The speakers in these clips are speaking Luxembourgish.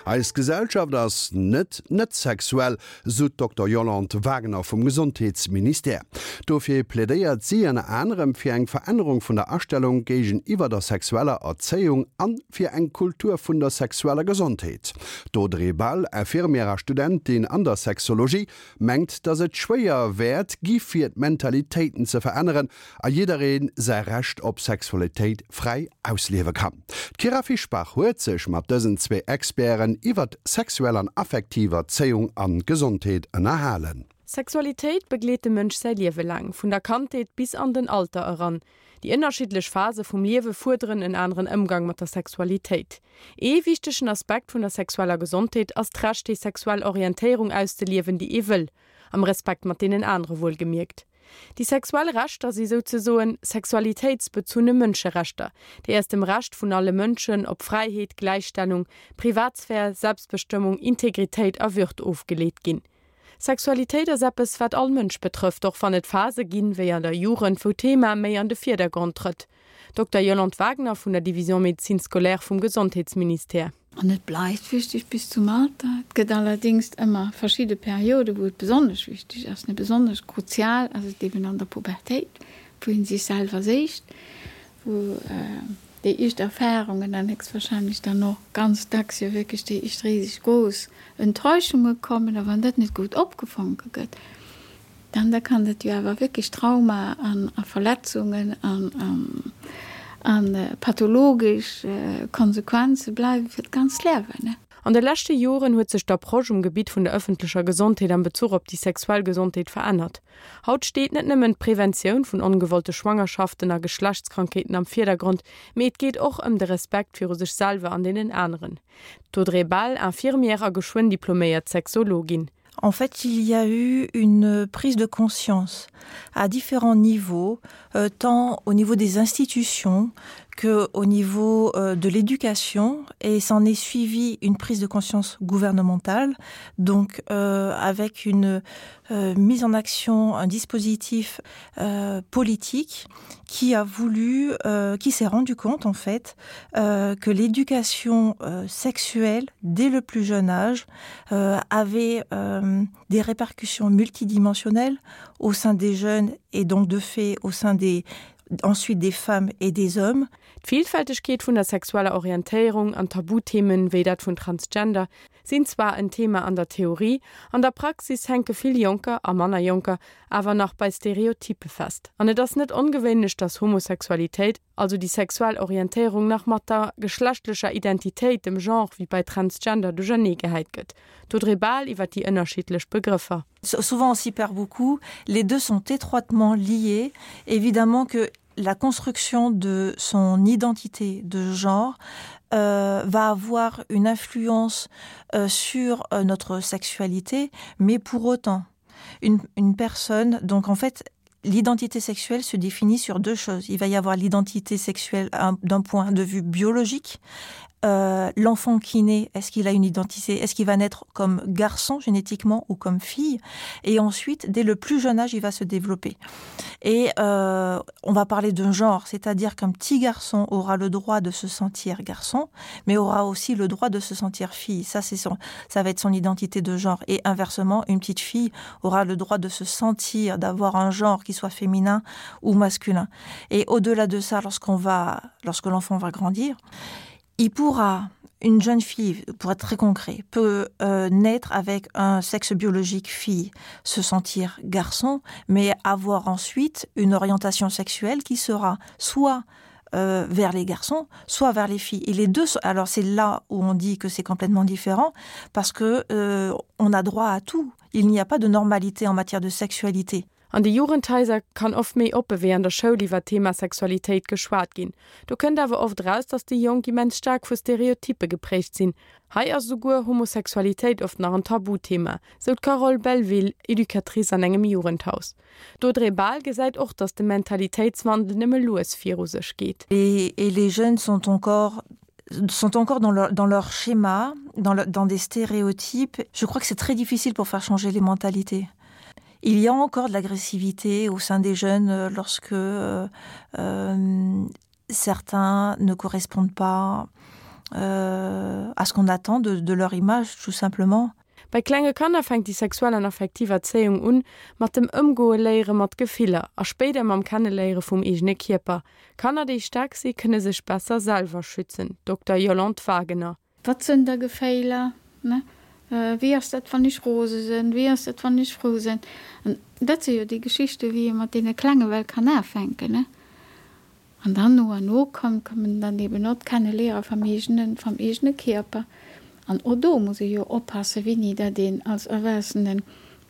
Eis Gesellschaft ass net net sexuell, sou d'Dokter Yolande Wagner vum Gesondheetsministère. Dofir plädéiert si ënner anerem fir eng Verännerung vun der Astellung géigeniwwer der sexueller Erzéiung an fir eng Kultur vun der sexueller Gesondheet. D'Audrey Bal, Infirmière a Studentin an der Sexologie, mengt, datt et schwéier wäert gi fir d'Mentalitéiten ze veränneren a jidderee säi Recht op Sexualitéit fräi ausliewe kann. D'Kyra Fischbach huet sech mat dësen zwee Experten iwwert sexuell an affektiv Erzéiung an Gesondheet ënnerhalen. Sexualitéit begleet de Mënsch säi Liewe laang, vun der Kandheet bis an den Alter eran. Déi ënnerschiddlech Phase vum Liewe fuerderen en aneren Ëmgang mat der Sexualitéit. Ee wichtegen Aspekt vun der sexueller Gesondheet ass d'Recht déi sexuell Orientéierung auszeliewen, déi ee wëll, am Respekt mat deenen anere wuelgemierkt. Déi sexuell Rechter si souzesoen sexualitéitsbezunne Mënscherechter, déi aus dem Recht vun alle Mënschen op Fräiheet, Gläichstellung, Privatsphär, Selbstbestëmmung, Integritéit a Würd ofgeleet ginn. Sexualitéit ass eppes, wat all Mënsch betrëfft, och wann et Phase ginn, wéi an der Jugend, wou d'Thema méi an de Virdergrond trëtt. Dokter Yolande Wagner vun der Division Médecine scolaire vum Gesondheetsministère. An et bleift wichteg bis zum Alter. Et gëtt allerdéngs ëmmer verschidde Perioden, wou et besonnesch wichteg ass. Besonnesch kruzial ass et eben an der Pubertéit, wou ee sech selwer séicht, wou déi éischt Erfarungen an héchstwahrscheinlech dann och ganz dacks jo wierklech déi éischt riseg grouss Enttäuschunge kommen. A wann dat net gutt opgefonke gëtt, Dann da kann dat jo awer wierklech Trauma an a Verletzungen an an pathologesch Konsequenze bleiwe fir d'ganzt Liewen. An de leschte Joren huet sech d'Approche um Gebitt vun der ëffentlecher Gesondheet am Bezuch op déi sexuell Gesondheet verännert. Haut steet net nëmmen d'Preventioun vun ongewollte Schwangerschaften a Geschlechtskrankheeten am Virdergrond, mee et geet och ëm de Respekt viru sech selwer an deenen aneren. D'Audrey Bal, Infirmière a geschwënn diploméiert Sexologin. En fait, il y a eu une prise de conscience à différents niveaux, euh, tant au niveau des institutions que au niveau euh, de l'éducation et s'en est suivi une prise de conscience gouvernementale, donc euh, avec une euh, mise en action, un dispositif euh, politique qui a voulu, euh, qui s'est rendu compte en fait euh, que l'éducation euh, sexuelle dès le plus jeune âge euh, avait euh, des répercussions multidimensionnelles au sein des jeunes et donc de fait au sein des ensuite des femmes et des hommes. D'Villfältegkeet vun der sexueller Orientéierung an Tabuthemen, wéi dat vun Transgender, sinn zwar en Thema an der Theorie, an der Praxis hänke vill Jonker, a manner Jonker, awer nach bei Stereotyppe fest. An et ass net ongewéinlech, dass Homosexualitéit, also déi sexuell Orientéierung, nach mat der geschlechtlecher Identitéit, dem Genre, wéi bei Transgender, duerchernee gehäit gëtt. D'Audrey Bahl iwwer déi ënnerschiddlech Begrëffer. Souvent on s'y perd beaucoup, les deux sont étroitement liés. Évidemment que la construction de son identité de genre euh, va avoir une influence euh, sur euh, notre sexualité, mais pour autant une, une personne donc en fait l'identité sexuelle se définit sur deux choses. Il va y avoir l'identité sexuelle d'un point de vue biologique, euh, l'enfant qui naît, est-ce qu'il a une identité, est-ce qu'il va naître comme garçon génétiquement ou comme fille et ensuite dès le plus jeune âge il va se développer. Et euh, on va parler d'un genre, c'est-à-dire qu'un petit garçon aura le droit de se sentir garçon, mais aura aussi le droit de se sentir fille. Ça c'est son ça va être son identité de genre et inversement une petite fille aura le droit de se sentir d'avoir un genre qui soit féminin ou masculin. Et au-delà de ça lorsqu'on va lorsque l'enfant va grandir, il pourra une jeune fille pour être très concret peut euh, naître avec un sexe biologique fille se sentir garçon mais avoir ensuite une orientation sexuelle qui sera soit euh, vers les garçons soit vers les filles et les deux alors c'est là où on dit que c'est complètement différent parce que euh, on a droit à tout il n'y a pas de normalité en matière de sexualité An de Jugendhaiser kann oft méi oppe wéi an der Schoul iwwer d'Thema Sexualitéit geschwat ginn. Do kënnt awer oft eraus, dass déi Jonk immens staark vu Stereotyppe geprägt sinn. Hei ass esouguer Homosexualitéit oft nach en Tabuthema, sou d'Carole Belleville, Educatrice an engem Jugendhaus. D'Audrey Bahl gesäit och, dass de Mentalitéitswandel nëmme lues viru sech geet. Et les jeunes sont encore sont encore dans leur, dans leur schéma, dans, le, dans des stéréotypes. Je crois que c'est très difficile pour faire changer les mentalités. Il y a encore de l'agressivité au sein des jeunes euh, lorsque euh, euh, certains ne correspondent pas. Euh, à ce qu'on attend de, de leur image tout simplement. Bei klenge Kanner fänkt déi sexuell an affektiv Erzéiung un, mat dem Ëmgoe léiere mat Gefiller a spéider mam Kenneléiere vum eegene Kierper. Kanner, déi staark si, kënne sech besser selwer schützen, Dokter Yolande Wagener. Wat sënn da Geféiler, ne? Wéi ass dat, wann ech rose sënn? Wéi ass dat, wann ech frou sënn? An dat si jo déi Geschichte wéi ee mat deene Klenge well kann afänken, ne? An dann no an no kommen dann eben och d'Kenneliere vam eegenen, vam eegene Kierper. An och do muss ee jo oppassen, wéini dat een als Erwuessenen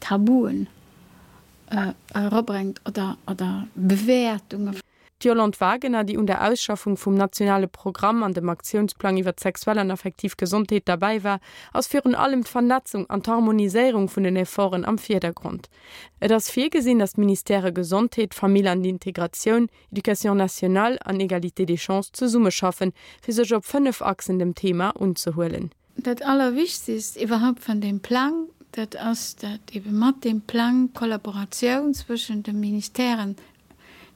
Tabuen erabrengt oder, oder Bewäertungen. D'Yolande Wagener, déi un der Ausschaffung vum nationale Programm an dem Aktiounsplang iwwer d'sexuell an affektiv Gesondheet derbäi war, ass virun allem d'Vernetzung an d'Harmoniséierung vun den Efforten am Virdergrond. Et ass virgesinn, datt d'Ministèrë Gesondheet, Famill an Integratioun, Éducation nationale an Égalité des chances zesummeschaffen, fir sech op 5 Achsen dem Thema unzehuelen. Dat Allerwichtigst iwwerhaupt van deem Plang, dat ass, dat ebe mat deem Plang d'Kollaboratioun zwëschen de Ministèren,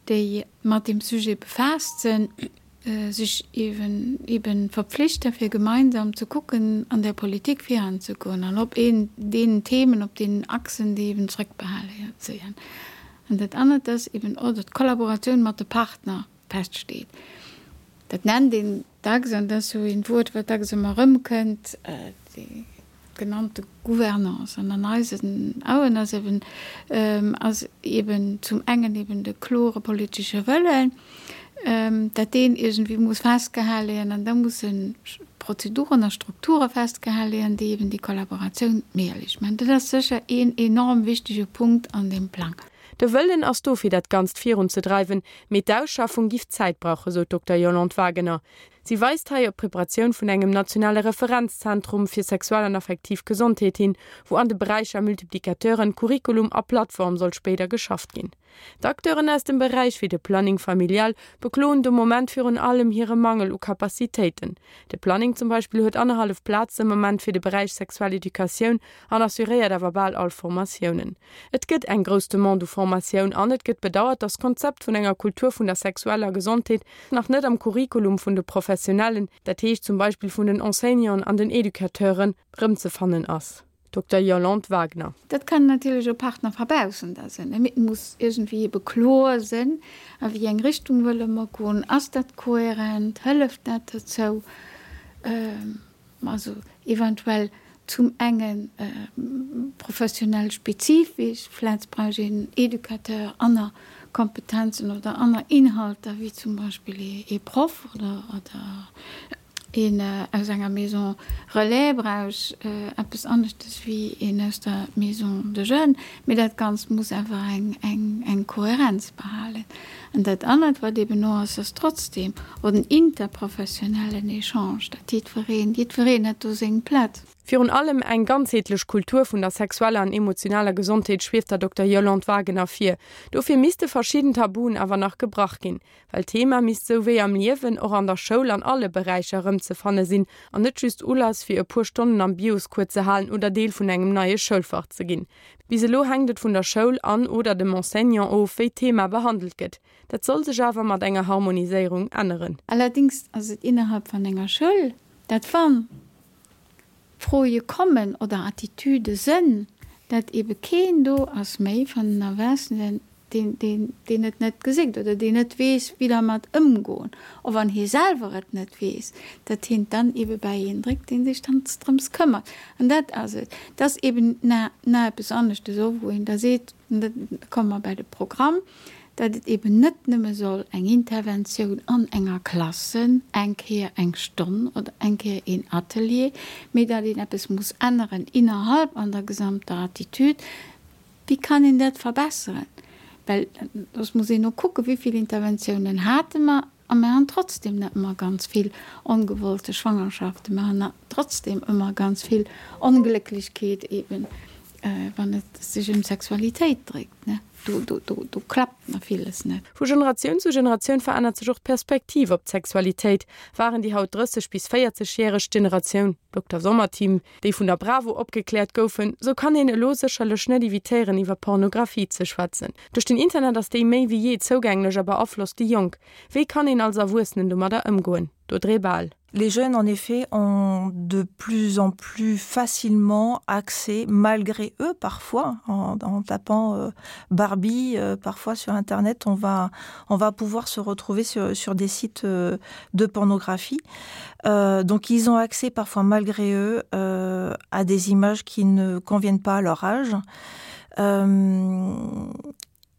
déi mat deem Sujet befaasst sinn, sech eben eben verpflichten, fir gemeinsam ze kucken, an der Politik viranzegoen an op een deenen Themen, op deenen Achsen, déi eben zrëckbehale sinn. An dat anert ass eben och, datt d'Kollaboratioun mat de Partner feststeet. Dat nennt een dacks, an dat ass esou een Wuert, wat dacks ëmmer erëmkënnt, déi genannte Gouvernance. An an eisen Auen ass eben, ass eben zum engen eben de klore politesche Wëllen, dat deen iergendwéi muss festgehale ginn an da musse Prozeduren a Strukture festgehale ginn, déi eben déi Kollaboratioun méiglech maachen. Dat ass sécher een enorm wichtege Punkt an deem Plang. De Wëllen ass do fir dat Ganzt virunzedreiwen, mee d'Ausschaffung giff Zäit brauchen, sou d'Dokter Yolande Wagener. Si weist hei op d'Preparatioun vun engem nationale Referenzzentrum fir sexuell an affektiv Gesondheet hin, wou an de Beräicher Multiplicateuren, Curriculum a Plattform soll spéider geschafft ginn. D'Acteuren aus dem Beräich, wéi de Planning familial, bekloen de Moment virun allem hire Mangel u Capacitéiten. De Planning zum Beispill huet annerhallef Plazen am Moment fir de Beräich sexuell Educatioun an assuréiert awer bal all Formatiounen. Et gëtt eng grouss Demande u Formatioun an et gëtt bedauert, datt d'Konzept vun enger Kultur vun der sexueller Gesondheet nach net am Curriculum vun de Professionellen, dat heescht zum Beispill vun den Enseignanten an den Educateuren, rëmzefannen ass. Dokter Yolande Wagner. Dat kann natierlech e Partner verbaussen, da sinn, mee et muss iergendwéi ebe kloer sinn, a wéi eng Richtung wëlle mer goen, ass dat kohärent, hëlleft dat dozou, also eventuell zum enge professionell spezifesch, vläicht brauch een Educateur aner Kompetenzen oder aner Inhalter wéi zum Beispill ee Proff oder Een aus enger Maison relais brauch eppes aneschtes wéi een aus der Maison de jeunes, mee dat Ganzt muss awer eng Kohärenz behalen. An dat anert, wat eeben och ass, ass trotzdem och den interprofessionellen Echange, dat jiddwereen, jiddwereen huet do seng Plaz. Virun allem eng ganzheetlech Kultur vun der sexueller an emotionaler Gesondheet schwieft der Dokter Yolande Wagener vir. Dofir misste verschidden Tabuen awer nach gebrach ginn. Well d'Thema misst sou wéi am Liewen och an der Schoul an alle Beräicher erëmzefanne sinn an net just Ulass fir e puer Stonnen am Bioscours ze halen oder Deel vun engem neie Schoulfach ze ginn. Bis elo hänkt et vun der Schoul an oder dem Enseignant of, wéi d'Thema behandelt gëtt. Dat soll sech awer mat enger Harmoniséierung änneren. Allerdings ass et innerhalb van enger Schoul, dat wann Froe kommen oder Attitüde sënn, dat ebe keen do ass méi van den Erwaassenen, deen, deen, deen et net geséckt oder deen net weess, wéi dermat ëmgoen, och wann hie selwer et net weess, dat hien dann ebe bäi een dréckt, deen sech dann drëms këmmert. An dat ass et. Dat ass eben na, na eppes aneschtes och, wou een da seet, an da komme mer bäi de Programm, dat et eben net nëmme soll eng Interventioun an enger Klass sënn, eng Kéier eng Stonn oder eng Kéier een Atelier, mee dat een eppes muss änneren innerhalb an der gesamter Attitude. Wéi kann een dat verbesseren? Well soss muss een och kucken, wéi vill Interventiounen hate mer a mer han trotzdem net ëmmer ganz vill ongewollte Schwangerschaften, mer han trotzdem ëmmer ganz vill Onglécklechkeet eben, wann et sech ëm Sexualitéit dréckt. ne? Do, do, do, do klappt nach villes net. Vu Generatioun zu Generatioun verännert sech och d'Perspektiv op d'Sexualitéit. Waren déi haut 30 bis 40 järeg Generatioun Dokter Sommerteam, déi vun der Bravo opgekläert goufen, sou kann een elo sécherlech net evitéieren iwwer Pornografie ze schwätzen. Duerch den Internet ass déi méi wéi jee zougänglech a beaflosst déi Jonk. Wéi kann een als Erwuessenen domadder ëmgoen? D'Audrey Bahl. Les jeunes en effet ont de plus en plus facilement accès malgré eux parfois en, en tapant euh, Barbie euh, parfois sur internet on va on va pouvoir se retrouver sur, sur des sites euh, de pornographie euh, donc ils ont accès parfois malgré eux euh, à des images qui ne conviennent pas à leur âge euh,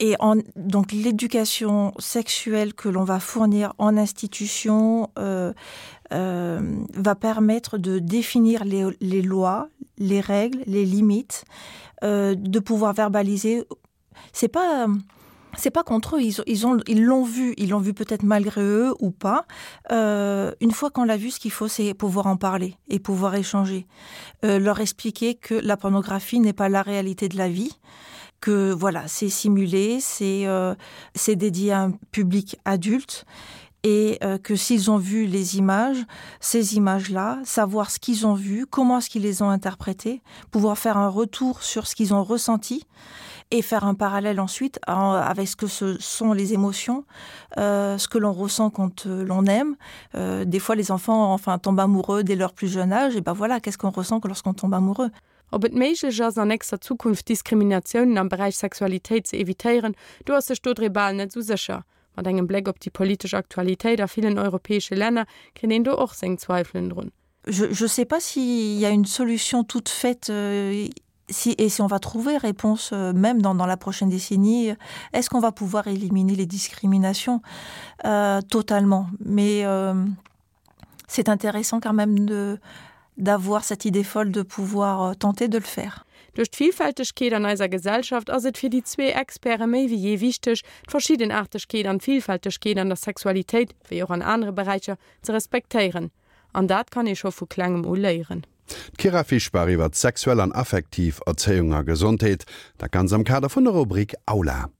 et en, donc l'éducation sexuelle que l'on va fournir en institution euh, euh, va permettre de définir les, les lois, les règles, les limites, euh, de pouvoir verbaliser c'est pas c'est pas contre eux ils, ils ont ils l'ont vu ils l'ont vu peut-être malgré eux ou pas euh, une fois qu'on l'a vu ce qu'il faut c'est pouvoir en parler et pouvoir échanger euh, leur expliquer que la pornographie n'est pas la réalité de la vie que voilà c'est simulé c'est euh, c'est dédié à un public adulte et euh, que s'ils ont vu les images ces images là savoir ce qu'ils ont vu comment est-ce qu'ils les ont interprétées pouvoir faire un retour sur ce qu'ils ont ressenti et faire un parallèle ensuite en, avec ce que ce sont les émotions euh, ce que l'on ressent quand euh, l'on aime euh, des fois les enfants enfin tombent amoureux dès leur plus jeune âge et ben voilà qu'est-ce qu'on ressent que lorsqu'on tombe amoureux Ob et méiglech ass, an nächster Zukunft Diskriminatiounen am Beräich Sexualitéit ze evitéieren, do ass sech d'Audrey Bahl net esou sécher. Mat engem Bléck op déi politesch Aktualitéit a villen europäesche Länner kritt een do och seng Zweifelen drun. Je, je sais pas s'il y a une solution toute faite euh, si, et si on va trouver réponse euh, même dans, dans la prochaine décennie, est-ce qu'on va pouvoir éliminer les discriminations euh, totalement Mais euh, c'est intéressant quand même de d'avoir cette idée folle de pouvoir euh, tenter de le faire. Duerch d'Villfältegkeet an eiser Gesellschaft ass et fir déi zwee Experte méi wéi jee wichteg, d'Verschiddenaartegkeet an d'Villfältegkeet an der Sexualitéit, wéi och an anere Beräicher, ze respektéieren. An dat kann ee scho vu klengem u léieren. D'Kyra Fischbach iwwer sexuell an affektiv Erzéiung a Gesondheet, dat Ganz am Kader vun der Rubrik Aula.